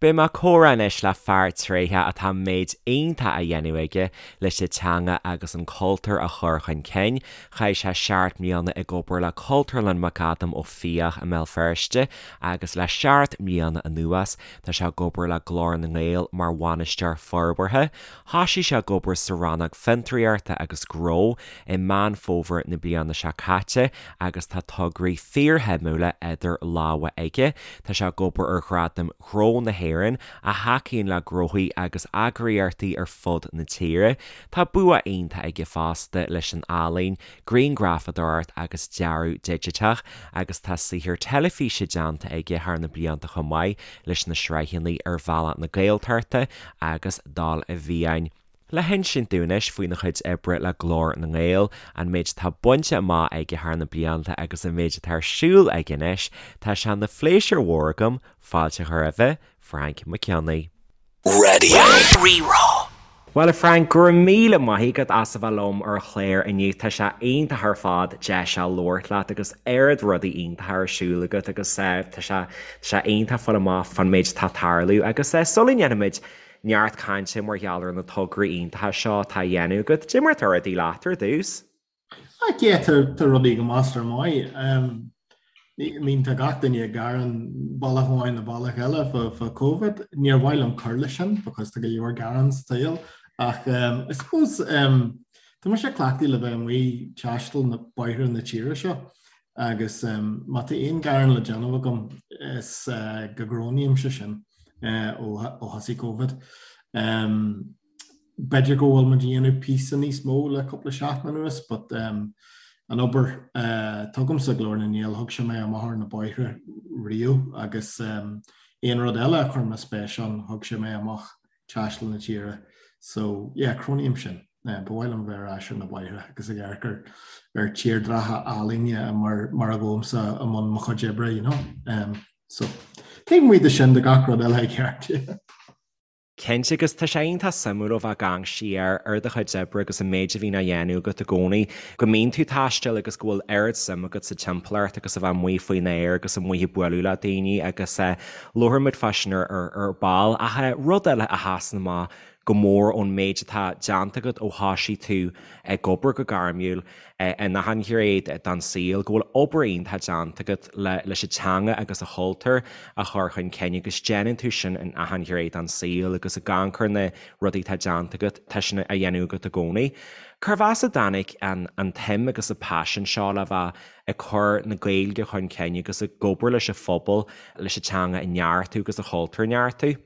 Beidh mé ag comhrá anois le fear tréitheach atá méid iontach á dhéanamh aige leis an teanga agus an cultúr a chur chun cinn. Chaith sé seacht mbliana ag obair le Cultúrlann McAdam Ó Fiaich i mBéal Feirste agus le seacht mbliana anuas tá sé ag obair le Glór na nGael mar Bhainisteoir Forbartha. Thosaigh sé ag obair sa rannóg Fiontraíochta agus Gnó i Meán Fómhair na bliana seo caite agus tá tograí fíorshuimiúla idir lámha aige. Tá sé ag obair ar Ghradaim Ghnó na hÉireann, a thacaíonn le gnóthaí agus eagraíochtaí ar fud na tíre. Tá bua iontach aige fosta leis an ealaín, grianghrafadóireacht agus dearadh digiteach, agus tá saothar teilifíse déanta aige thar na blianta chomh maith leis na sraitheanna Ar Bhealach na Gaeltachta agus Dul i bhFiáin. Le hinsint dúinn anois faoina chuid oibre le Glór na nGael, an méid atá bainte amach aige thar na blianta agus an méid atá ar siúl aige anois, tá sé ina phléisiúr mhór agam fáilte a chur roimhe, Frainc Mac Cionnaith. Radio Rí-Rá. Bhuel a Frank, go raibh míle maith agat as a bheith liom ar an chlár inniu. Tá sé iontach ar fad deis a labhairt leat agus oiread rudaí iontacha ar siúl agat agus tá sé tá sé iontach fáil amach fán méid atá ag tarlú agus sula ndéanfaimid neart cainte mar gheall ar na tograí iontacha seo atá á dhéanamh agat. Cad é mar atá rudaí leat ar dtús? Ah, yeah, tá tá rudaí go measartha maith. Um, I mean, tá gach duine ag gearán bealach amháin nó bealach eile fá fá Covid. Níor mhaith liom cur leis sin because tá go leor gearán sa tsaol. Ach um, I suppose um, tá mise cleachtaithe le bheith amuigh ag taisteal na bóithre na tíre seo agus um, má tá aon gearán le déanamh agam is uh, go gcronaímse sin. ó thosaigh Covid. B'fhéidir go bhfuil muid ag déanamh píosa níos mó le cúpla seachtain anuas but an obair atá agamsa Glór na nGael, thug sé mé amach ar na bóithre riamh agus aon rud eile a chuir mé spéis ann, thug sé mé amach taisteal na tíre. So yeah, cronaím sin. Ba mhaith liom bheith ar ais ar na bóithre agus ag amharc ar ar tírdhreacha álainne mar mar a ghabhaimse i mbun mo chuid oibre, you know. Um, so, taobh amuigh de sin tá gach rud eile i gceart. Yeah. Cinnte, agus tá sé iontach suimiúil ó bheith ag amharc siar ar do chuid oibre agus an méid a bhíonn á dhéanamh agat i gcónaí, go mbíonn tú ag taisteal agus go bhfuil oiread suim agat sa timpeallacht agus a bheith amuigh faoin aer agus amuigh ag bualadh le daoine agus labharfaidh muid fá sin ar ball. Ach rud eile a sheasann amach go mór ón méid atá déanta agat ó thoisigh tú ag obair go gairmiúil in achan ghné den saol, go bhfuil obair iontach déanta agat leis an teanga agus an chultúr a chur chun cinn agus déanann tú sin in achan ghné den saol agus ag amharc ar na rudaí atá déanta agat, tá sin á dhéanamh agat i gcónaí. Cérbh as a dtáinig an tsuim agus an paisean seo le bheith ag cur na Gaeilge chun cinn agus ag obair leis an phobal leis an teanga a neartú agus an chultúr a neartú?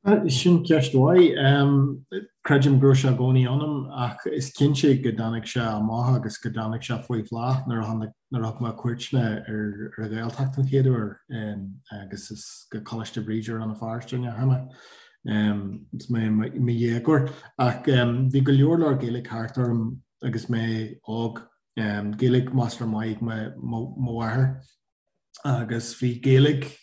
Sin ceist mhaith. Creidim go raibh sé i gcónaí ionam ach is cinnte go dtáinig sé amach agus go dtáinig sé faoi bhláth nuair a tháinig, nuair a thug mé cuairteanna ar ar an Ghaeltacht an chéad uair agus is go Coláiste Bhríde Rann na Feirste a ndeachaigh mé agus mé i mo dhéagóir. Ach bhí go leor leor Gaeilge thart orm agus mé óg. Gaeilge measartha maith ag mo mháthair. agus bhí Gaeilge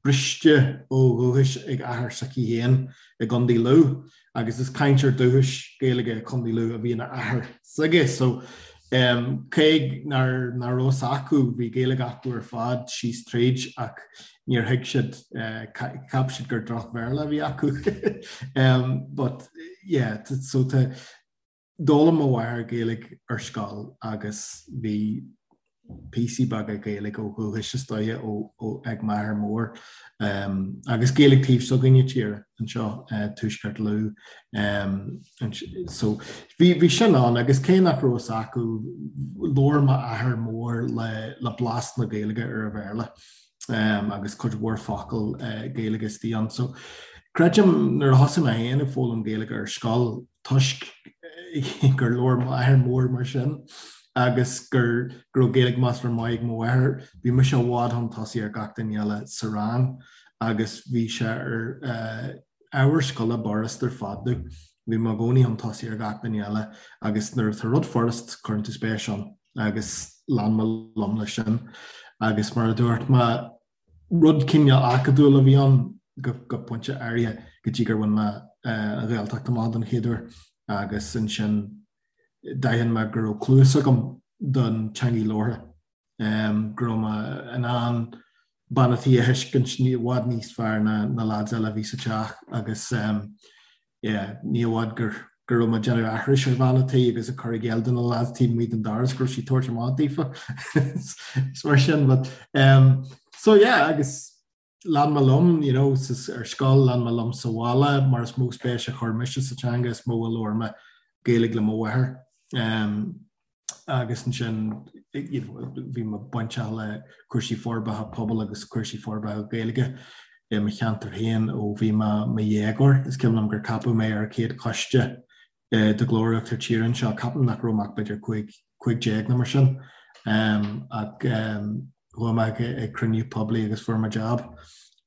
briste ó dhúchas ag athair s'aici féin i gContae Lú agus is cainteoir dúchais Gaeilge Contae Lú a bhí ina athair s'aige so cé nár nach raibh fhios acu bhí Gaeilge acu ar fad síos tríd ach níor thuig siad cheap siad gur droch-Bhéarla a bhí acu but yeah so tá D'fhoghlaim mo mháthair Gaeilge ar scoil agus bhí píosaí beaga Gaeilge ó dhúchas is dóiche ag m'athair mór agus Gaeilge taobh s'againne tíre anseo, Tuaisceart Lú. So bhí sin ann agus cé nach raibh fhios acu, labhair m'athair mór le blas na Gaeilge ar a Bhéarla agus cuid mhór focal Gaeilge istigh ann. So creidim nuair a thosaigh mé féin ag foghlaim Gaeilge ar scoil, toisc gur labhair m'athair mór mar sin agus gur go raibh Gaeilge measartha maith ag mo mháthair, bhí mise i bhfad chun tosaigh ar gach duine eile sa rang agus bhí sé ar ábhar scoile b'fhurast ar fad domh. Bhí mé i gcónaí chun tosaigh ar gach duine eile agus nuair atá rud furast, cuireann tú spéis ann agus lean mé liom leis sin. Agus mar a dúirt mé, Rud cineál acadúil a bhí ann go pointe áirithe go dtí gur bhain mé an Ghaeltacht amach don chéad uair agus ansin d'aithin mé go raibh cluas agam don teangaidh labhartha, go raibh mé in ann bean a' tí a thuiscint i bhfad níos fearr ná na lads eile a bhí sa teach agus yeah, ní i bhfad gur go raibh mé ag déanamh aithris ar bhean a' tí agus ag cur i gcéill do na lads taobh amuigh den doras go raibh sí ag tabhairt amach daofa is mar sin but um, so yeah agus lean mé liom you know, ar scoil lean mé liom sa bhaile mar is mó spéis a chuir mise sa teanga is mó a labhair mé Gaeilge le mo mháthair. Um, agus ansin bhí mé bainteach le cúrsaí forbartha pobail agus cúrsaí forbartha Gaeilge i mo cheantar féin ó bhí mé i mo dhéagóir. Is cuimhin liom gur ceapadh mé ar an chéad choiste de Ghlór Uachtar Tíre anseo, ceapaim nach raibh mé ach b'fhéidir 15 nó mar sin, ach chuaigh mé ag cruinniú poiblí agus fuair mé jab.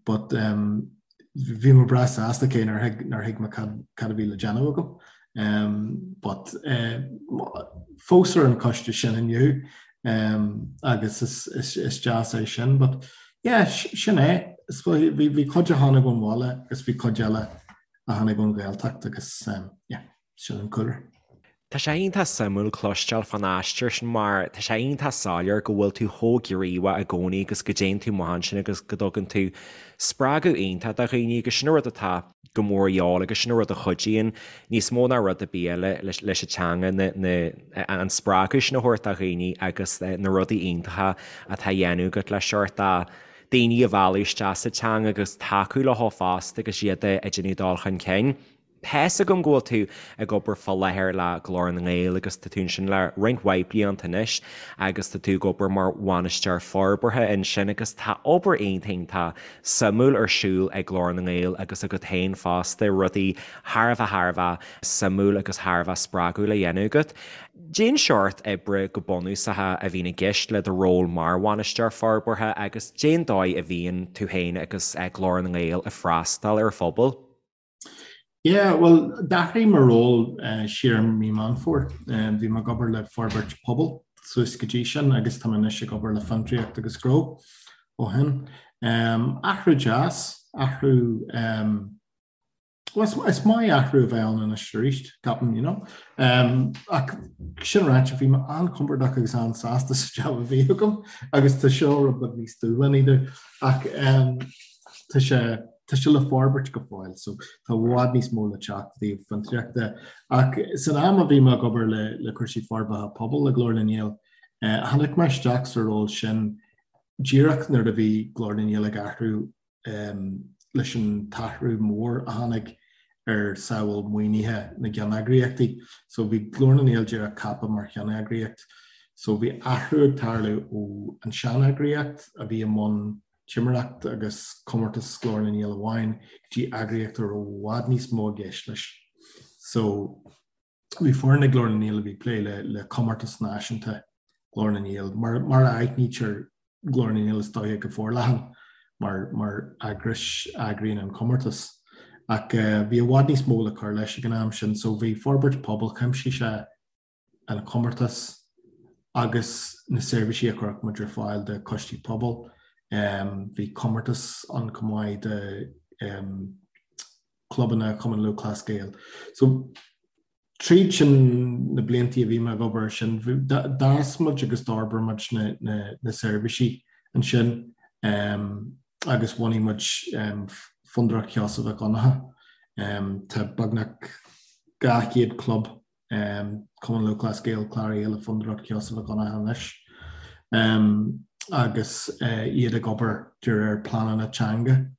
But bhí mé breá sásta cé nár thuig nár thuig mé cad cad a bhí le déanamh agam. Um, but uh, fós ar an coiste sin inniu um, agus is, is, is deas é sin, but yeah, sin é. Bhí bhí cuid a tháinig ón bhaile agus bhí cuid eile a tháinig ón Ghaeltacht agus um, yeah, sin an cúlra. Tá sé iontach suimiúil cloisteáil fán aistear sin mar tá sé iontach soiléir go bhfuil tú chomh gníomhach i gcónaí agus go dtéann tú amach ansin agus go dtugann tú spreagadh iontach do dhaoine agus sin an rud atá go mór a dhíobháil agus sin an rud a chuidíonn níos mó ná rud ar bith eile leis an teanga, na, an spreagadh sin a thabhairt do dhaoine agus na rudaí iontacha atá á dhéanamh agat le seort daoine a mhealladh isteach sa teanga agus tacú leo fosta agus iad ag déanamh dul chun cinn. Tá's agam go bhfuil tú ag obair fá láthair le Glór na nGael agus tá tú ansin le roinnt mhaith blianta anois agus tá tú ag obair mar bhainisteoir forbartha ansin agus tá obair iontach iontach suimiúil ar siúl ag Glór na nGael agus agat féin fosta, rudaí thar a bheith thar a bheith suimiúil agus thar a bheith spreagúil á dhéanamh agat. Cén seort oibre go bunúsach a bhíonn i gceist le do ról mar bhainisteoir forbartha agus cén dóigh a bhíonn tú féin agus Glór na nGael ag freastal ar phobal? Yeah, bhuel, d'athraigh mo ról siar i mí Meán Fómhair. Bhí mé ag obair le forbairt pobail suas go dtí sin agus tá mé anois ag obair le fiontraíocht agus gnó ó shin. Athrú deas, athrú, bhuel, is maith athrú a bheith ann anois arís, ceapaim, you know. Ach sin ráite, bhí mé an-chompordach agus an-sásta sa jab a bhí agam agus tá seo rud beag níos dúshlánaí domh. Ach tá sé, Tá sé le forbairt go fóill so tá i bhfad níos mó le teacht i dtaobh fiontraíochta. Ach san am a bhí mé ag obair le le cúrsaí forbartha pobail le Glór na nGael, tháinig mé isteach sa ról sin díreach nuair a bhí Glór na nGael ag athrú leis an t-athrú mór a tháinig ar samhail maoinithe na gceanneagraíochtaí. So bhí Glór na nGael díreach ceaptha mar cheanneagraíocht. So bhí athrú ag tarlú ó an seaneagraíocht a bhí i mbun timireacht agus comórtas Glór na nGael amháin go dtí eagraíocht a raibh i bhfad níos mó i gceist leis. So bhí foireann ag Glór na nGael a bhí ag plé le le comórtas náisiúnta Glór na nGael mar mar a aithnítear Glór na nGael is dóiche go forleathan mar mar eagrais a eagraíonn an comórtas. Ach eh, bhí i bhfad níos mó le cur leis ag an am sin, so bhí forbairt pobail chuimsigh sé an comórtas agus na seirbhísí a chuirfeadh muid ar fáil do choistí pobail. Bhí comórtas ann chomh maith do chlubanna Chumann Lúthchleas Gael. So tríd sin na bliantaí a bhí mé ag obair air sin, d'fhás muid agus d'fhorbair muid na seirbhísí ansin agus bhunaigh muid Fondúireacht Sheosaimh Mhic Dhonncha. Tá beagnach 200 club Cumann Lúthchleas Gael cláraithe le Fondúireacht Sheosaimh Mhic Dhonncha anois agus iad ag obair de réir pleananna teanga,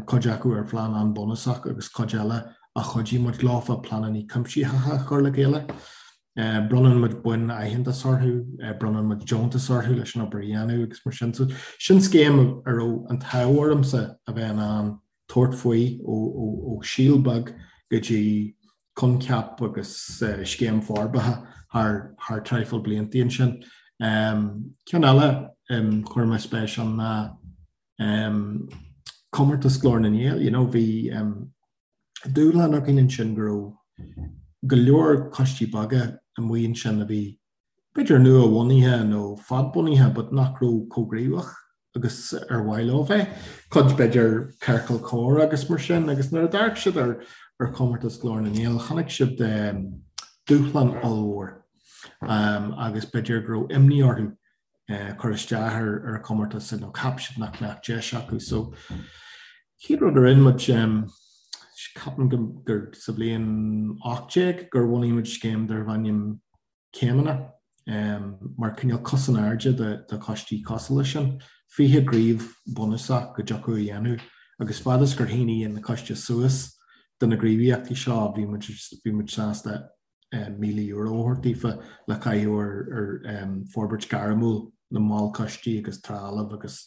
cuid acu ar phlean an-bhunúsach agus cuid eile a chuidigh muid leofa pleananna cuimsitheacha a chur le chéile. Bronnann muid boinn aitheantais orthu, bronnann muid deontais orthu leis an obair a dhéanamh agus mar sin. So sin scéim a raibh an t-ádh ormsa a bheith in ann tabhairt faoi ó síol beag go dtí coincheap agus scéim forbartha thar traidhfil bliantaí ansin. Ceann eile chuir mé spéis ann ná comórtas Glór na nGael. You know, bhí dúshlán againn ansin go raibh go leor coistí beaga amuigh ansin a bhí b'fhéidir nua-bhunaithe nó fadbhunaithe but nach raibh chomh gníomhach agus ar mhaith leo bheith, cuid b'fhéidir ciorcal comhrá agus mar sin, agus nuair a d'amharc siad ar ar chomórtas Glór na nGael chonaic siad dúshlán ollmhór agus b'fhéidir go raibh imní orthu. cur isteach ar an chomórtas nó cheap siad nach mbeadh deis acu. So chéad rud a rinne muid, ceapaim gur sa bhliain 18 gur bhunaigh muid scéim darbh ainm Céimeanna, mar cineál cos in airde do choistí cosúil leis sin, 20 gníomh bunúsach go dtiocfadh a dhéanamh agus fad is gur shínigh na coistí suas do na gníomhaíochtaí seo bhí muid bhí muid sásta €1,000 a thabhairt daofa le caitheamh ar forbairt gairmiúil na mball coistí agus trealamh agus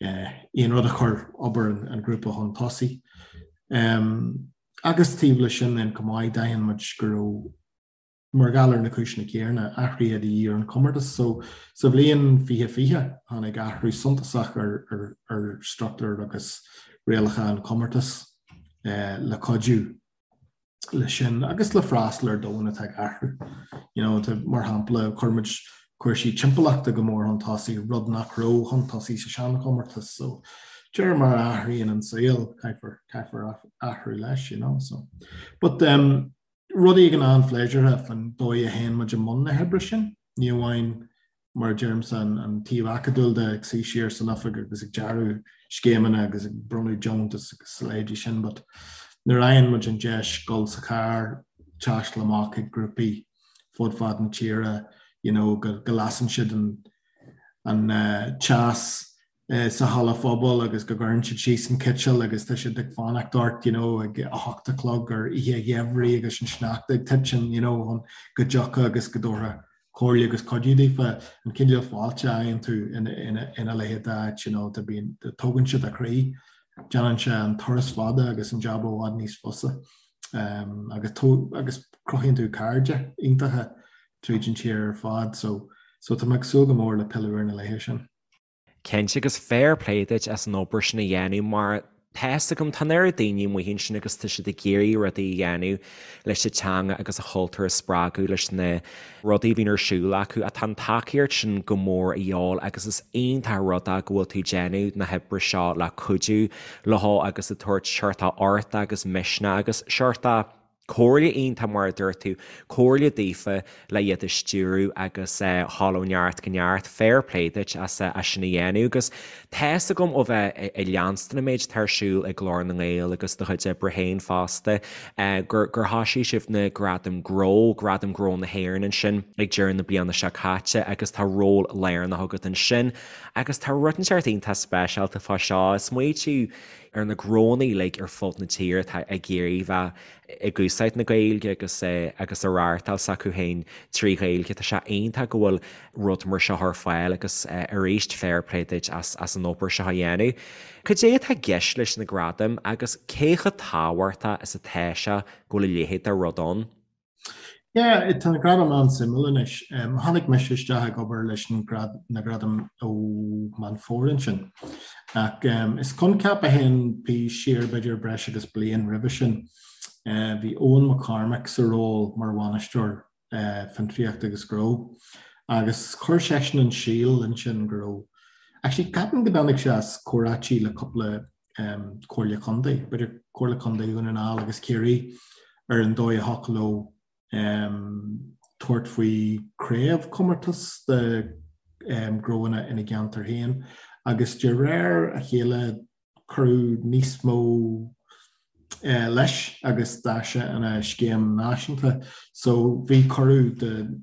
aon rud a chuir obair an ghrúpa chun tosaigh. Agus taobh leis sin then chomh maith, d'aithin muid go raibh, mar gheall ar na cúiseanna céanna, athruithe de dhíth ar an chomórtas. So, sa bhliain 2020, tháinig athrú suntasach ar struchtúr agus rialacha an chomórtais le cuidiú leis sin agus le freastal ar domhan atá ag athrú. You know, mar shampla, chuir muid cúrsaí timpeallachta go mór chun tosaigh, rud nach raibh chun tosaigh sa seanchomórtas. So, de réir mar a athraíonn an saol, caithfear, caithfear athrú leis, you know. So, but um, rud éigin an-phléisiúrtha faoin dóigh a théann muid i mbun na hoibre sin, ní amháin mar a deirimse, an taobh acadúil de, ag suí siar san oifig agus ag dearadh scéimeanna agus ag bronnadh deontas agus a leithéidí sin, but nuair a fhaigheann muid an deis dul sa charr, taisteal amach chuig grúpaí fud fad na tíre, you know, go lasann siad an an teas sa halla phobail agus go gcuireann siad síos an citeal agus tá siad ag fanacht ort, you know, ag 8 a chlog ar oíche gheimhridh agus an sneachta ag titim, you know, chun go dtiocfá agus go dtabharfá comhairle agus cuidiú daofa, an cineál fáilte a fhaigheann tú ina leithéid d'áit, you know, bíonn, tógann sé do chroí, déanann sé an turas fada agus an jab i bhfad níos fusa agus agus cruthaíonn tú cairde iontacha tríd an tír ar fad, so so tá mé ag súil go mór le pilleadh ar na laetha sin. Cinnte, agus fair play duit as an obair sin a dhéanamh mar tá fhios agam, tá an oiread daoine amuigh ansin agus tá siad ag iarraidh rudaí a dhéanamh leis an teanga agus an chultúr a spreagadh leis na rudaí a bhíonn ar siúl acu ach tá an tacaíocht sin go mór a dhíobháil agus is iontach an rud é go bhfuil tú ag déanamh na hoibre seo le cuidiú leo agus ag tabhairt seort ort agus misneach agus seort Comhairle iontach mar a dúirt tú, comhairle daofa le iad a stiúradh agus a dhul ó neart go neart. Fair play duit as sin a dhéanamh agus tá fhios agam ó bheith ag leanstan an méid atá ar siúl ag Glór na nGael agus do chuid oibre féin fosta gur gur thoisigh sibh na Gradaim Gnó, Gradaim Gnó na hÉireann ansin ag deireadh na bliana seo caite agus tá ról lárnach agat ansin agus tá rud inteacht iontach speisialta fá seo. Smaoitiú ar na gnónna uilig ar fud na tíre atá ag iarraidh bheith ag úsáid na Gaeilge agus agus a reáchtáil s'acu féin trí Ghaeilge. Tá sé iontach go bhfuil rud mar seo ar fáil agus arís fair play duit as as an obair seo a dhéanamh. Cad é atá i gceist leis na gradaim agus cé chomh tábhachtach is atá sé go bhfuil a leithéid de rud ann? Yeah, tá na gradaim an-suimiúil anois. Tháinig mise isteach ag obair leis na gradaim ó Meán Fómhair ansin. Ach is coincheap a théann siar b'fhéidir breis agus bliain roimhe sin. Bhí Eoin McCormack sa ról mar bhainisteoir fiontraíochta agus gnó agus chuir seisean an síol ansin go raibh, actually ceapaim go dtáinig sé as comhráití le cúpla Comhairle Contae, b'fhéidir Comhairle Contae Dhún na nGall agus Ciarraí, ar an dóigh a thiocfadh leo tabhairt faoi chraobhchomórtas de ghnóanna ina gceantar féin agus de réir a chéile cuireadh níos mó leis agus d'fhás sé ina scéim náisiúnta. So bhí cuireadh do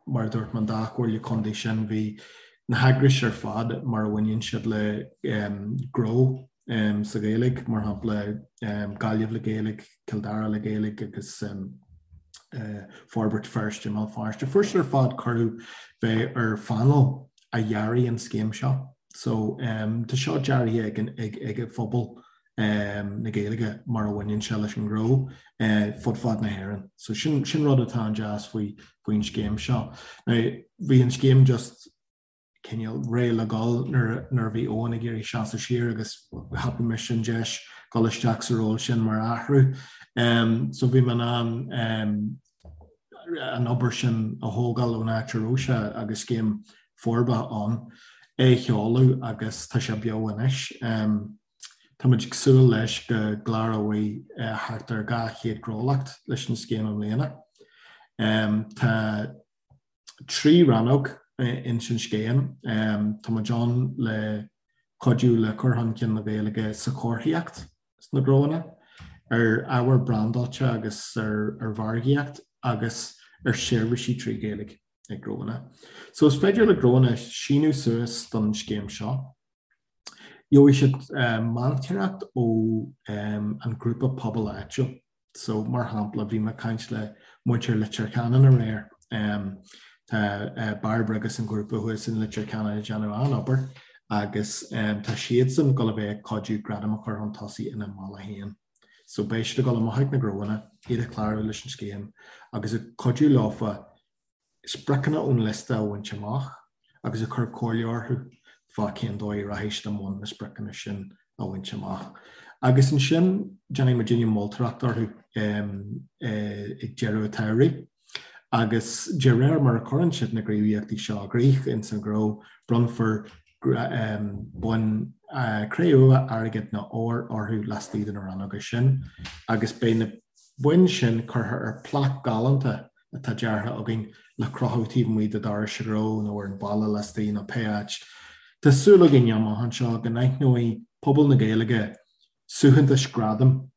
mar a dúirt mé, an dá chomhairle contae sin, bhí na heagrais ar fad mar a bhaineann siad le gnó sa Ghaeilge, mar shampla Gaillimh le Gaeilge, Cill Dara le Gaeilge agus Forbairt Feirste i mBéal Feirste. Fuair siad ar fad cuireadh bheith ar phainéal a dhearaigh an scéim seo. So tá seo deartha ag ag an phobal na Gaeilge mar a bhaineann sé leis an ngnó fud fad na hÉireann. So sin sin rud atá an-deas faoi faoin scéim seo. Now bhí an scéim just cineál réidh le dhul nuair nuair a bhí Eoin ag iarraidh seasamh siar agus thapaigh mise an deis dul isteach sa ról sin mar athrú. So bhí mé in ann an obair sin a thógáil ón áit a raibh sé agus scéim forbartha ann, é a sheoladh agus tá sé beo anois. Tá muid ag súil leis go gcláróidh thart ar 200gnólacht leis an scéim i mbliana. Tá 3 rannóg. ins an scéim. Tá muid ann le cuidiú le cur chun cinn na Gaeilge sa chomharthaíocht sna gnóanna, ar ábhar brandáilte agus ar mhargaíocht agus ar sheirbhísí trí Ghaeilge ag gnóanna. So is féidir le gnóanna síniú suas don scéim seo. Gheobhaidh siad meantóireacht ó an grúpa pobail áitiúil. So, mar shampla, bhí mé ag caint le muintir Leitir Ceanainn aréir. Tá Bairbre agus an grúpa thuas in Leitir Ceanainn ag déanamh an-obair agus tá siadsan ag dul a bheith ag cuidiú gradam a chur chun tosaigh ina mbaile féin. So beidh siad ag dul amach ag na gnóanna, iad a chlárú leis an scéim agus ag cuidiú leofa spriocanna ón liosta a bhaint amach agus ag cur comhairle orthu fá cén dóigh a rachaidh siad i mbun na spriocanna sin a bhaint amach. Agus ansin déanfaidh muidinne moltóireacht orthu ag deireadh an tsamhraidh agus de réir mar a chuireann siad na gníomhaíochtaí seo i gcrích ins an ghnó, bronnfar boinn cré-umha, airgid nó óir orthu laistigh de na rannóga sin agus beidh na boinn sin curtha ar plaic galánta atá deartha againn le crochadh taobh amuigh de dhoras an ghnó nó ar an bhalla laistigh nó pé áit. Tá súil againn amach anseo go n-aithneoidh pobal na Gaeilge suaitheantais gradaim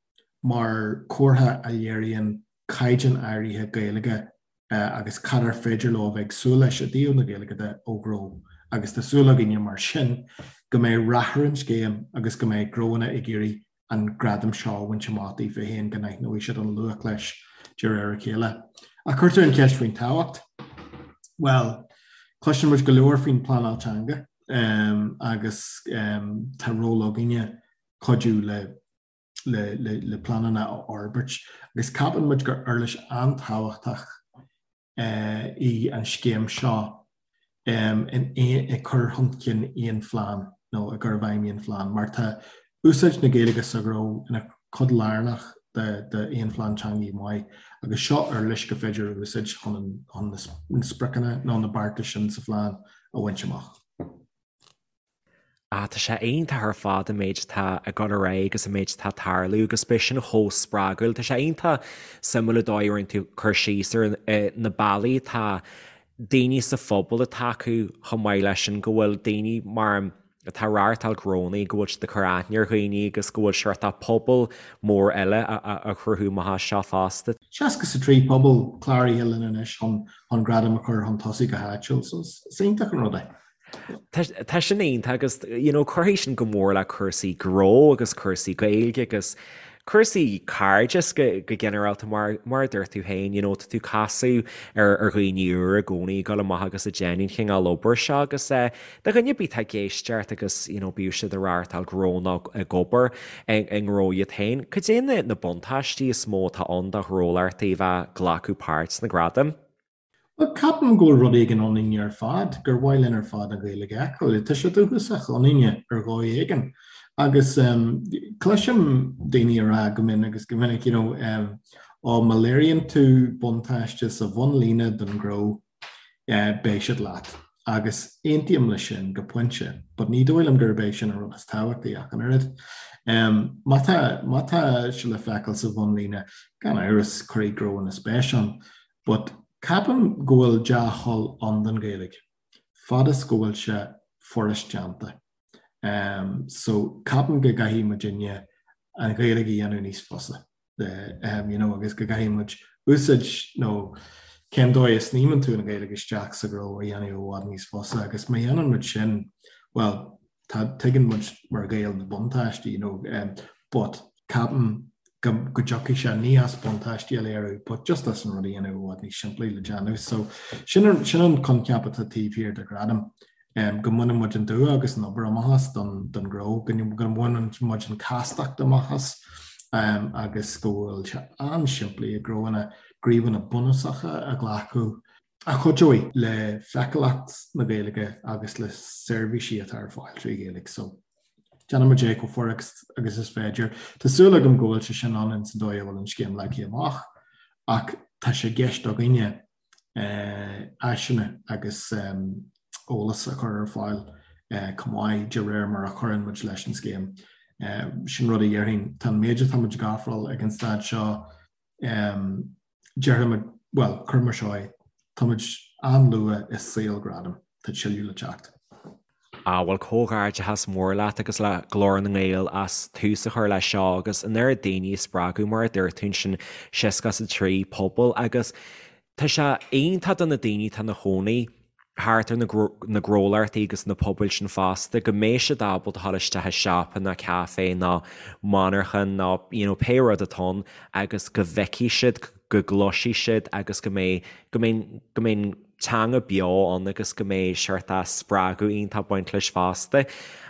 mar chomhartha a léiríonn caighdeán áirithe Gaeilge agus cad ar féidir leo a bheith ag súil leis i dtaobh na Gaeilge de ó ghnó agus tá súil againne mar sin go mbeidh rath ar an scéim agus go mbeidh gnóanna ag iarraidh an gradam seo a bhaint amach daofa féin, go n-aithneoidh siad an luach leis de réir a chéile. Ach cuirtear an cheist faoin tábhacht. Bhuel, cloiseann muid go leor faoin bpleanáil teanga agus tá ról againne cuidiú le le le pleananna a fhorbairt agus ceapann muid gur uirlis an-tábhachtach í an scéim seo in ag cur chun cinn aon phlean nó i gcur i bhfeidhm aon phlean mar tá úsáid na Gaeilge sa ghnó ina cuid lárnach d'aon phlean teanga maith agus seo uirlis gur féidir a úsáid chun na spriocanna nó na beartais sin sa phlean a bhaint amach. Ah, tá sé iontach ar fad an méid atá ag dul ar aghaidh agus an méid atá ag tarlú agus beidh sin chomh spreagúil. Tá sé iontach suimiúil an dóigh a rinne tú cur síos ar na bealaí atá daoine sa phobal ag tacú chomh maith leis sin go bhfuil daoine mar atá ag reáchtáil gnónna, go bhfuil siad ag cur aithne ar dhaoine agus go bhfuil sórt pobal mór eile á chruthú amach as seo fosta. 63 pobal cláraithe linn anois chun gradam a chur chun tosaigh go háitiúil, so is iontach an rud é. Tá sin iontach agus you know cuirfidh sin go mór le cúrsaí gnó agus cúrsaí Gaeilge agus cúrsaí cairdis go go ginearálta mar mar a dúirt tú féin you know tá tú ag casadh ar ar dhaoine úra i gcónaí ag dul amach agus ag déanamh an chineál obair seo agus eh do dhuine ar bith atá ag éisteacht agus you know bíodh siad ag reáchtáil gnó nó ag obair i i ngnó iad féin, cad é na na buntáistí is mó atá ann do ghnólachtaí a bheith ag glacadh páirt sna gradaim? Bhuel, ceapaim go bhfuil rud éigin ionainne ar fad, gur mhaith linn ar fad an Ghaeilge a fheiceáil. Tá sé dúchasach ionainne ar dhóigh éigin. Agus cloisim daoine ag rá go mion agus go minic, you know, ó má léiríonn tú buntáiste sa bhunlíne don ghnó, beidh siad leat. Agus aontaím leis sin go pointe, but ní dóigh liom gurb é sin an rud is tábhachtaí ach an oiread. Má tá, má tá sé le feiceáil sa bhunlíne, gan amhras, cuirfidh gnóanna spéis ann. But ceapaim go bhfuil dea-thoil ann don Ghaeilge, fad is go bhfuil sé furast déanta. So ceapaim go gcaithfidh muidinne an Ghaeilge a dhéanamh níos fusa. You know, agus go gcaithfidh muid úsáid nó cén dóigh a sníomann tú an Ghaeilge isteach sa ghnó a dhéanamh i bhfad níos fusa agus má dhéanann muid sin, bhuel, tá, tuigeann muid mar Ghaeil na buntáistí, you know, but ceapaim go go dtiocfaidh sé ní as buntáistí a léiriú but just as an rud a dhéanamh i bhfad níos simplí le déanamh. So sin an sin an coincheap atá taobh thiar de Ghradam, go mbaineann muid an dua agus an obair amach as don don ghnó, go go mbaineann muid an chastacht amach as agus go bhfuil sé an-simplí ag gnóanna gníomhanna bunúsacha a ghlacadh a chuideoidh le feiceálacht na Gaeilge agus le seirbhísí atá ar fáil trí Ghaeilge. So, déanfaidh muid é chomh furast agus is féidir. Tá súil agam go bhfuil sé sin ann ins an dóigh a bhfuil an scéim leagtha amach, ach tá sé i gceist againne áiseanna agus eolas a chur ar fáil chomh maith de réir mar a chuireann muid leis an scéim. Sin rud a dhéarfainn. Tá an méid atá muid ag ofráil ag an staid seo, Déarfaidh muid, bhuel, cuir mar seo é, tá muid an-luath i saol Gradam. tá tuilleadh le teacht. Ah bhuel comhghairdeachas mór leat agus le Glór na nGael as tús a chur leis seo agus an oiread daoine a spreagadh mar a dúirt tú ansin 63 pobal agus tá sé iontach do na daoine atá ina chónaí thart ar na gnólachtaí agus na pobail sin fosta go mbeidh siad ábalta dul isteach i siopa nó caife nó monarchan nó you know pé rud atá ann agus go bhfeicfidh siad go gcloisfidh siad agus go mbeidh go mbeidh go mbeidh teanga beo ann agus go mbeidh seort spreagadh iontach ag baint leis fosta.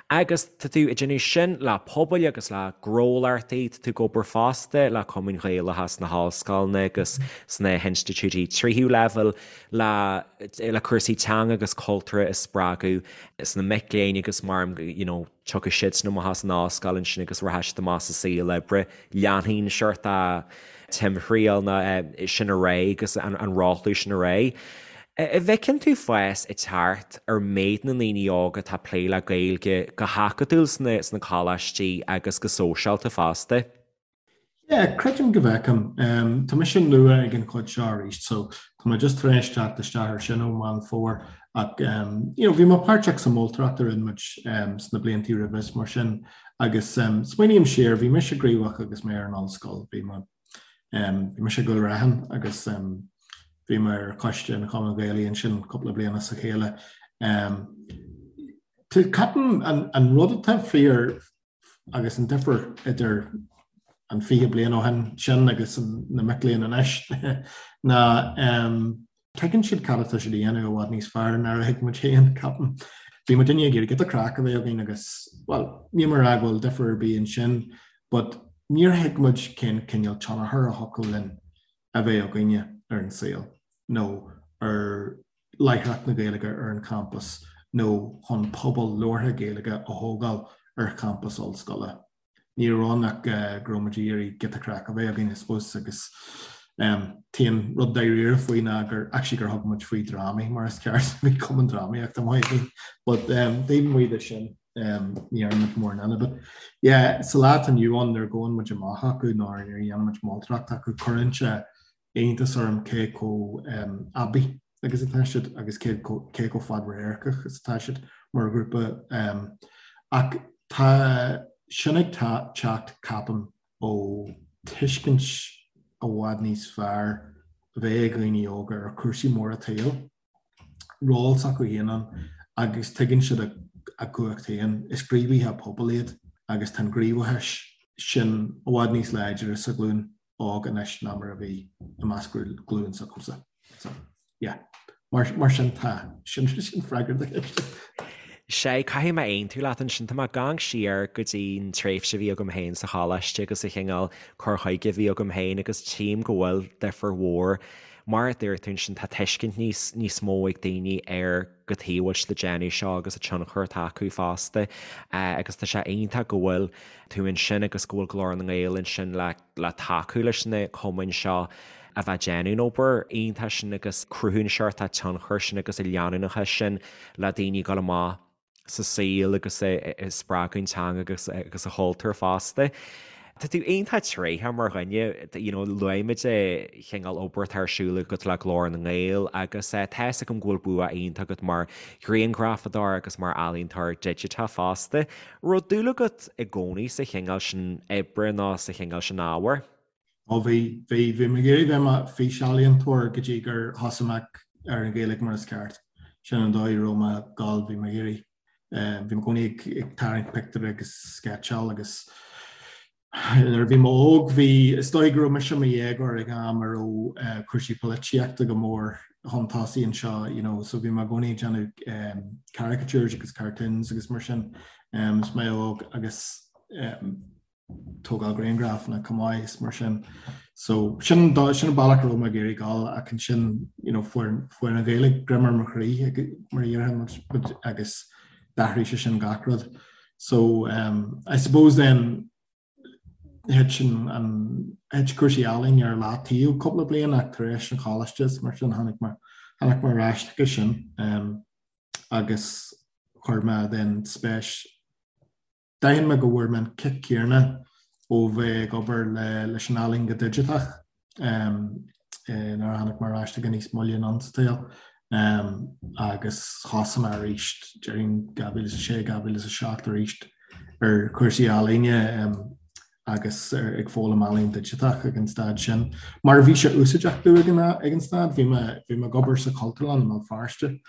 Agus tá tú ag déanamh sin le pobail agus le gnólachtaí, tá tú ag obair fosta le cumainn Ghaelacha sna hollscoileanna agus sna hinstitiúidí tríú leibhéal le le cúrsaí teanga agus cultúrtha a spreagadh sna mic léinn agus mar you know tiocfaidh siadsan amach as an ollscoil ansin agus rachaidh siad amach sa saol oibre. Leanfaidh an seort timthriall ná sin ar aghaidh agus an rothlú sin ar aghaidh. An bhfeiceann tú fás ag teacht ar méid na ndaoine óga atá ag plé le Gaeilge go hacadúil sna coláistí agus go sóisialta fosta? Yeah, creidim go bhfeicim. Tá mise nua ag an chuid seo arís, so tá mé just tar éis teacht isteach ar sin ó Meán Fómhair ach you know, bhí mé páirteach sa mholtóireacht a rinne muid sna bliantaí roimhe is mar sin agus smaoiním siar, bhí mise gníomhach agus mé ar an ollscoil, bhí mé bhí mise i gCúil Raithin agus bhí mé ar choiste an Chumainn Ghaelaigh ansin cúpla bliain as a chéile. Ceapaim an rud atá fíor agus an difear idir an 20 bliain ó shin sin agus na mic léinn anois ná tuigeann siad cad atá siad a dhéanamh i bhfad níos fearr ná a thuig muid féin, ceapaim. Bhí muidinne ag iarraidh giota craic a bheith againn agus, bhuel, níl mé ag rá go bhfuil difear ar bith ansin, but níor thuig muid cén cineál tionchar a thiocfadh linn a bheith againne ar an saol nó ar láithreacht na Gaeilge ar an champas nó chun pobal labhartha Gaeilge a thógáil ar champas ollscoile. Ní raibh ann ach go raibh muid ag iarraidh giota craic a bheith againn, I suppose, agus t-aon rud dáiríre faoi ná gur actually gur thug muid faoi drámaí mar is ceart, bhí cumann drámaíochta maith againn, but taobh amuigh de sin ní dhearna muid mórán eile. But yeah, sa lá atá inniu ann nuair a gabhann muid amach acu nó nuair a dhéanann muid moltóireacht acu, cuireann sé iontas orm cé chomh aibí agus atá siad agus cé chomh fadradharcach is atá siad mar ghrúpa. Ach tá sin ag teacht, ceapaim, ó tuiscint i bhfad níos fearr a bheith ag dhaoine óga ar chúrsaí móra an tsaoil. ról s'acu féin ann agus tuigeann siad a gcumhacht féin. Is gníomhaithe pobail iad agus tá an gníomhachas sin i bhfad níos láidre sa ghlúin óg anois ná mar a bhí i measc glúin s'agamsa. So, yeah. Mar, mar sin tá. Sin, sin freagra do cheist. Sea, caithfidh mé aontú leat ansin. Tá mé ag amharc siar go dtí an tréimhse a bhí agam féin sa choláiste agus an cineál cur chuige a bhí agam féin agus tchím go bhfuil difear mhór Mar a dúirt tú ansin, tá tuiscint níos níos mó ag daoine ar cad chuige a bhfuil siad ag déanamh seo agus an tionchar atá acu fosta. Agus tá sé iontach go bhfuil tú ansin agus go bhfuil Glór na nGael ansin le le tacú leis na cumainn seo a bheith ag déanamh an obair iontach sin agus cruthú an seort tionchair sin agus an leanúnachas sin le daoine ag dul amach sa saol agus ag spreagadh an teanga agus agus an chultúr fosta. Tá tú iontach tréitheach mar dhuine, you know, luaigh muid an chineál obair atá ar siúl agat le Glór na nGael agus tá fhios agam go bhfuil bua iontach agat mar ghrianghrafadóir agus mar ealaíontóir digiteach fosta. Raibh dúil agat i gcónaí sa chineál sin oibre nó sa chineál sin ábhair? Ó bhí, bhí, bhí mé ag iarraidh bheith i mo fhísealaíontóir go dtí gur thosaigh mé ar an Ghaeilge mar is ceart. Sin an dóigh a raibh mé ag gabháil, bhí mé ag iarraidh, bhí mé i gcónaí ag tarraingt pictiúr agus sceitseáil agus nuair a bhí mé óg bhí, is dóigh go raibh mise i mo dhéagóir ag am a raibh cúrsaí polaitíochta go mór chun tosaigh anseo, you know, so bhí mé i gcónaí ag déanamh caricatures agus cartoons agus mar sin is mé óg agus tógáil grianghrafanna chomh maith is mar sin. So sin sin an bealach a raibh mé ag iarraidh dul ach ansin you know, fuair fuair an Ghaeilge greim ar mo chroí mar a déarfá agus d'athraigh sé sin gach rud. So um, I suppose then thit sin an thit cúrsaí ealaíne ar leataobh cúpla bliain ach tar éis an choláiste is mar sin tháinig mé tháinig mé ar ais chuige sin um, agus chuir mé then spéis D'aithin mé go bhfuair mé an cic céanna ó bheith ag obair leis an ealaín go digiteach nuair a tháinig mé ar ais chuige níos moille anonn sa tsaol. Agus thosaigh mé arís, déarfainn 2006, 2007 arís ar chúrsaí ealaíne agus ag foghlaim ealaín digiteach ag an staid sin. Mar bhí sé úsáideach domh ag an ag an staid, bhí mé bhí mé ag obair sa Chultúrlann i mBéal Feirste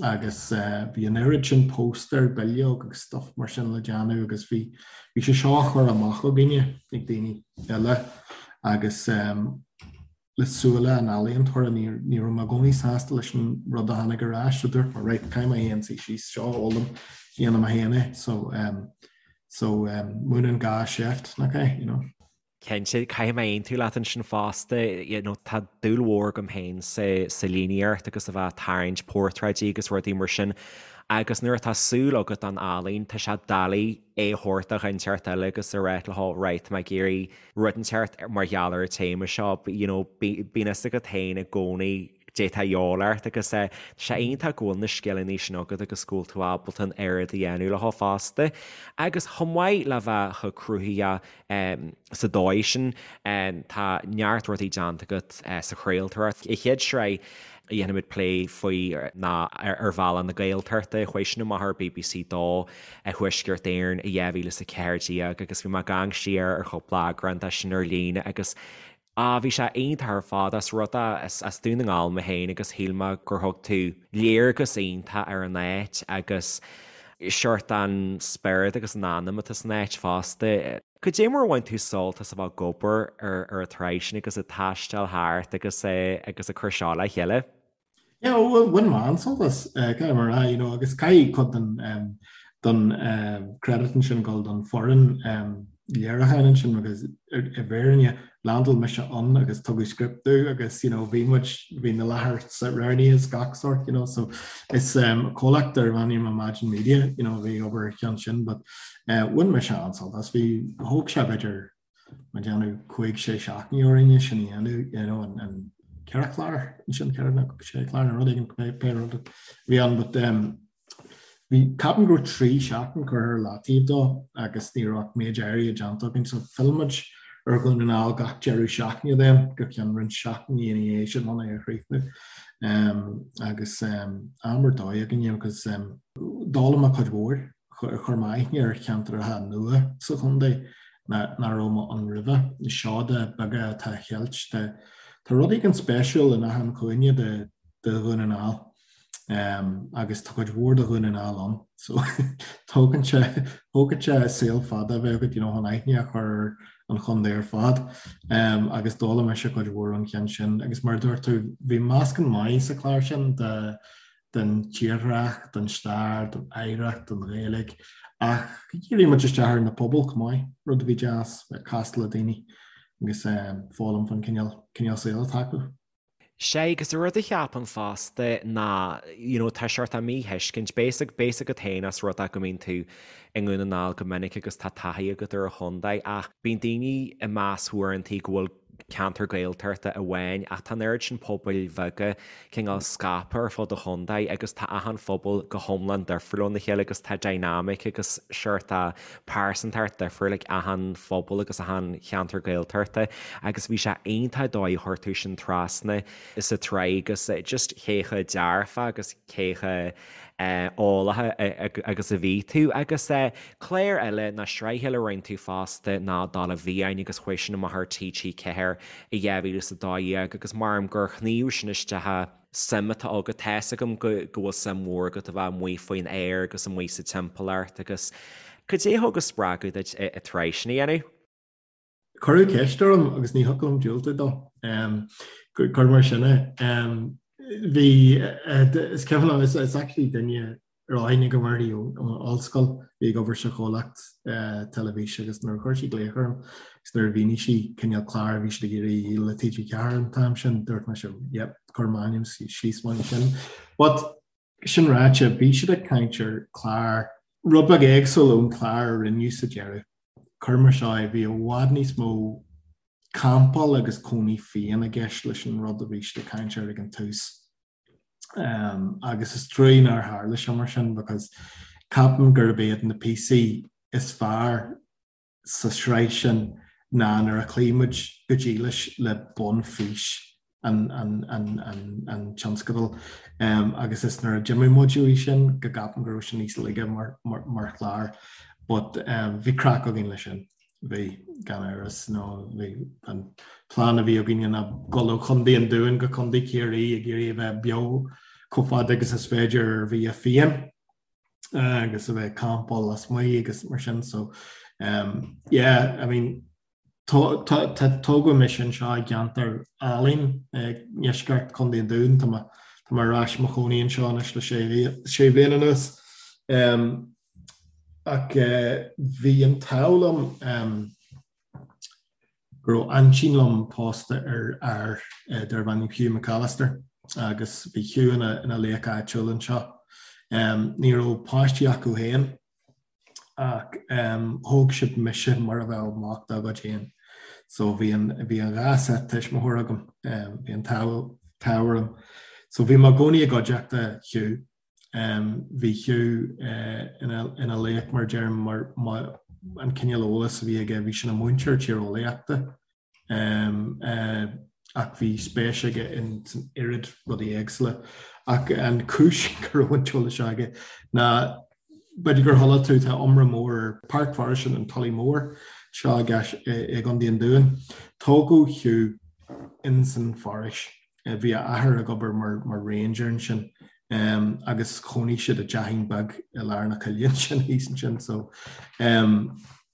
agus bhí an oiread sin póstaer, bileog agus stuff mar sin le déanamh agus bhí bhí sé seo á chur amach againne ag daoine eile agus le súile an ealaíontóra, ní ní raibh mé i gcónaí sásta leis an rud a tháinig ar ais, so dúirt mé right, caithfidh mé féin suí síos seo a fhoghlaim, dhéanfaidh mé féin é, so um, so um, múineann gá seift, nach é, you know. Cinnte, caithfidh mé aontú leat ansin fosta, you know, tá dúil mhór agam féin sa, sa líníocht agus a bheith ag tarraingt portráidí agus rudaí mar sin agus nuair atá súil agat don ealaín, tá sé doiligh é a thabhairt do dhuine inteacht eile agus a rá leo, right, tá mé ag iarraidh rud inteacht mar gheall ar an téama seo, you know, bíonn fhios agat féin i gcónaí caidé atá de dhíobháil ort agus tá sé iontach go bhfuil na scileanna sin agat agus go bhfuil tú ábalta an oiread a dhéanamh leo fosta. Agus chomh maith le bheith chomh cruthaitheach sa dóigh sin, tá neart rudaí déanta agat sa chraoltóireacht. An chéad sraith a dhéanfaimid plé faoi ná Ar Bhealach na Gaeltachta, chuaigh sin amach ar bbc 2 i Thuaisceart Éireann i 2014 agus bhí mé ag amharc siar ar chúpla eagrán de sin ar líne agus Ah, bhí sé iontach ar fad, as rud é, is as Dún na nGall mé féin agus shíl mé gur thug tú léargas iontach ar an áit agus seort an spiorad agus an anam atá san áit fosta. Cad é mar a bhain tú sult as a bheith ag obair ar an tsraith sin agus ag taisteal thart agus agus ag cur seo le chéile? Yeah, well, bhain mé an-sult as, caithfidh mé a rá, you know, agus caithfidh cuid den, den credit ansin dul don foireann léiriúcháin ansin because i bhfírinne landáil mise ann agus tugadh script domh agus you know, bhí muid, bhí na láithreacha roghnaithe is gach sort, you know, so is comhlacht darb ainm Imagine Media, you know, bhí obair ar cheann sin, but bhain mise an-sult as, bhí, thóg sé b'fhéidir ag déanamh 5, 6 seachtaine orainn é sin a dhéanamh, you know, an ceithre chlár ansin, ceithre nó sé chlár nó rud éigin, pé rud a bhí ann, but um, bhí, ceapaim go raibh 3 seachtain curtha ar leataobh dó agus ní raibh ach méid áirithe déanta againn, so phill muid ar Dhún na nGall gach deireadh seachtaine then go ceann roinnt seachtainí ina dhiaidh sin chun é a chríochnú. Um, agus um, am ar dóigh againn agus um, d'fhoghlaim mé cuid mhór. Chuir mé aithne ar cheantracha nua sa chontae nach raibh mé ann roimhe, na seoda beaga atá á cheilt. Tá rud éigin spéisiúil in achan chúinne de Dhún na nGall agus tá cuid mhór de Dhún na nGall ann so tógann sé tógann sé saol fada a bheith agat you know chun aithne a chur ar an chontae ar fad agus d'fhoghlaim mise cuid mhór ón cheann sin agus mar a dúirt tú bhí meascán maith sa chlár sin de den tírdhreach, den stair, den oidhreacht, den Ghaeilge, ach dhírigh muid isteach ar na pobail chomh maith, rud a bhí deas, bheith ag castáil le daoine agus foghlaim faoin cineál, cineál saoil atá acu. Sea, agus an rud a cheapaim fosta ná, you know, tá seort míthuiscint, beidh a fhios agat féin as rud é go mbíonn tú i nDún na nGall go minic agus tá taithí agat ar an chontae, ach bíonn daoine ag meas uaireantaí go bhfuil ceantar Gaeltachta amháin ach tá an oiread sin pobail bheaga cineál scaipthe ar fud an chontae agus tá achan phobal go hiomlán difriúil óna chéile agus tá dynamic agus seort pearsantacht difriúil ag achan phobal agus achan cheantar Gaeltachta agus bhí sé iontach an dóigh a chuir tú sin trasna sa tsraith agus just cé chomh dearfach agus cé chomh eolach agus a bhí tú. Agus clár eile nó sraith eile a rinne tú fosta ná Dála bhFiáin agus chuaigh sin amach ar TG4 i 2012 agus measaim gur shníomh sin isteach suim atá agat. Tá fhios agam go bhfuil suim mhór agat a bheith amuigh faoin aer agus amuigh sa timpeallacht agus cad é a thug an spreagadh duit an tsraith sin a dhéanamh? Cuireadh ceist orm agus ní thiocfadh liom diúltú dó. Cuir mar sin é. Bhí, is cuimhin liom, is actually duine a raibh aithne agam uirthi ón ollscoil, bhí ag obair sa chomhlacht teilifíse agus nuair a chuir sí glaoch orm agus nuair a mhínigh sí cineál clár a bhí siad ag iarraidh a dhíol le TG4 an t-am sin, dúirt mise, yep, cuir m'ainm síos mar sin. But Sin ráite, bhí siad ag caint ar chlár rud beag éagsúil ón chlár a rinneadh sa deireadh. Cuir mar seo é, bhí i bhfad níos mó campáil agus cónaí fiáin i gceist leis an rud a bhí siad ag caint air ag an tús. Agus is trua nár tharla sé mar sin because ceapaim gurb iad na píosaí is fearr sa sraith sin ná nuair a chloígh muid go dílis le bunfhís. an an an an an tionscadal agus is nuair a d'imigh muid uaidh sin go gceapaim go raibh sé níos laige mar mar mar chlár but bhí craic againn leis sin. Bhí, gan amhras, nó bhí an plean a bhí againne ná dul ó Chontae an Dúin go Contae Chiarraí ag iarraidh a bheith beo chomh fada agus is féidir ar bhia fiáin agus a bheith ag campáil lasmuigh agus mar sin so um, yeah, I mean tá tógadh mise anseo i gceantar álainn i ndeisceart Chontae an Dúin tá mé tá mé ar ais i mo chónaí anseo anois le sé bhliain anuas. Um, Ach bhí an t-ádh liom go raibh aintín liom pósta ar fhear darbh ainm Hugh McAllister agus bhí Hugh ina ina laoch áitiúil anseo. Ní raibh páistí acu féin ach thóg siad mise mar a bheadh mac dá gcuid féin. So bhí an bhí an dhá set tuismitheoir agam, bhí an t-ádh orm. So bhí mé i gcónaí i gcuideachta Hugh. Bhí Hugh ina laoch mar deirim mar an cineál eolas a bhí aige, bhí sé ina mhúinteoir tíreolaíochta ach bhí spéis aige in san oiread rudaí éagsúla. Ach an chúis go raibh an t-eolas seo aige ná b'fhéidir gur chuala tú tá iomrá mór ar Páirc Foraoise an Tulaigh Mhóir seo i gContae an Dúin. Tógadh Hugh in san foraois. Bhí a athair ag obair mar ranger ansin agus chónaigh siad i dteachín beag i lár na coille ansin thíos ansin so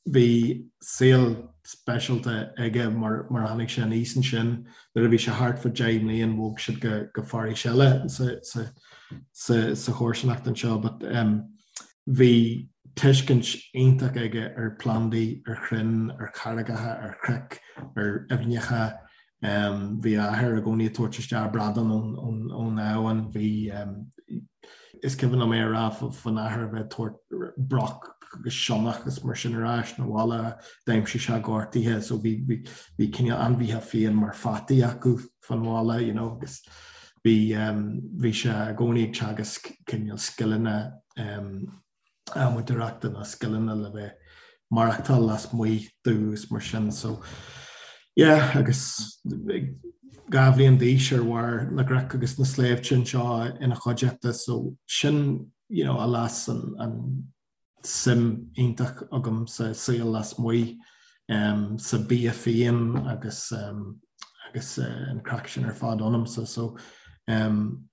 bhí saol speisialta aige mar mar a tháinig sé aníos ansin. Nuair a bhí sé thart fá 10 mbliain bhog siad go go foraois eile sa sa sa sa chomharsanacht anseo but bhí tuiscint iontach aige ar phlandaí, ar chrainn, ar charraigeacha, ar chnoic, ar aibhneacha, Bhí a athair i gcónaí ag tabhairt isteach bradán ón abhainn. Bhí, is cuimhin liom é a rá faoin athair a bheith ag tabhairt broc agus sionnach agus mar sin ar ais 'na bhaile, d'aimsigh sé gortaithe so bhí bhí cineál ainmhithe fiáin mar pheataí acu fán bhaile you know agus bhí bhí sé i gcónaí ag teagasc cineál scileanna adhmadóireachta nó scileanna le bheith maireachtáil lasmuigh domh mar sin so yeah agus 2 bhliain d'aois ar bharr na gcnoc agus na sléibhte anseo ina chuideachta so sin you know a las an, an suim iontach agam sa saol lasmuigh um, sa bia fiáin agus um, agus uh, an craic sin ar fad ionamsa so um,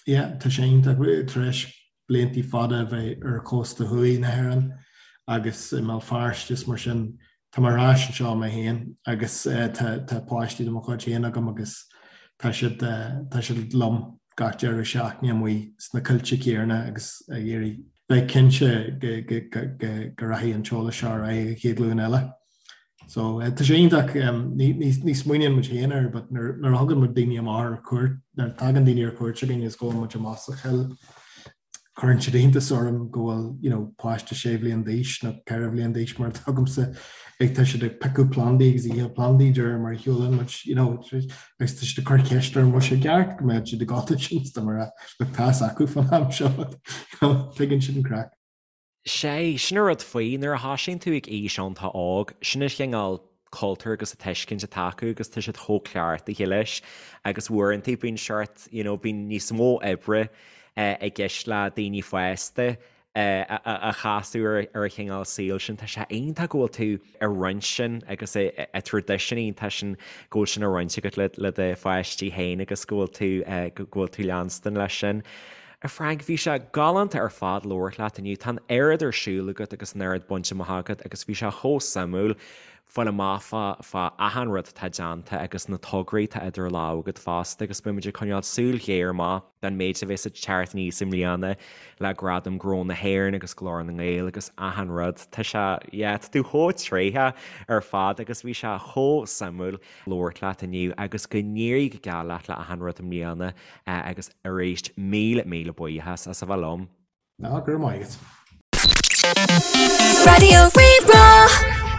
Yeah, tá sé iontach tar éis bliantaí fada a bheith ar chósta thuaidh na hÉireann agus i mBéal Feirste is mar sin, tá mé ar ais anseo mé féin agus tá tá páistí de mo chuid féin agam agus tá siad tá siad liom gach deireadh seachtaine amuigh sna coillte céanna agus ag iarraidh bheith cinnte go go go go rachaidh an t-eolas seo ar aghaidh an chéad ghlúin eile. So tá sé iontach, ní smaoiníonn muid féin air but nuair a thugann muid daoine amach ar cuairt, nuair a tagann daoine ar cuairt chugainn is gabhann muid amach sa choill, cuireann siad iontas orm go bhfuil you know páiste sé bhliain d'aois nó ceithre bhliain d'aois mar atá agamsa ag tá siad ag piocadh plandaí agus ithe plandaí de réir mar a shiúlann muid you know agus tá siad ag cur ceist orm bhfuil sé ceart go mbeadh siad ag gabháil ansin is tá mé ag rá look tá fhios acu fán am seo you know tuigeann siad an craic. Sé, sin an rud faoi, nuair a thosaíonn tú ag aois iontach óg, sin an chineál cultúr agus an tuiscint atá acu agus tá siad chomh cleachtaithe leis agus uaireanta bíonn seort, you know, bíonn níos mó oibre i gceist le daoine fásta a chasadh ar an chineál saoil sin. Tá sé iontach go bhfuil tú ag roinnt sin agus an traidisiún iontach sin go bhfuil sin á roinnt agat le do pháistí féin agus go bhfuil tú, go bhfuil tú leanstan leis sin. A Frank, bhí sé galánta ar fad labhairt leat inniu. Tá an oiread ar siúl agat agus an oiread bainte amach agat agus bhí sé chomh suimiúil fáil amach fá fá achan rud atá déanta agus na tograí atá idir lámha agat fosta agus beidh muid ag coinneáil súil ghéar amach don méid a bheas ag teacht aníos i mbliana le Gradaim Ghnó na hÉireann agus Glór na nGael agus achan rud. Tá sé, yeah, tá tú chomh tréitheach ar fad agus bhí sé chomh suimiúil labhairt leat inniu agus go n-éirí go geal leat le achan rud i mbliana. Agus arís, míle, míle buíochas as a bheith liom. Ná, go raibh maith agat. Raidió Rí-Rá.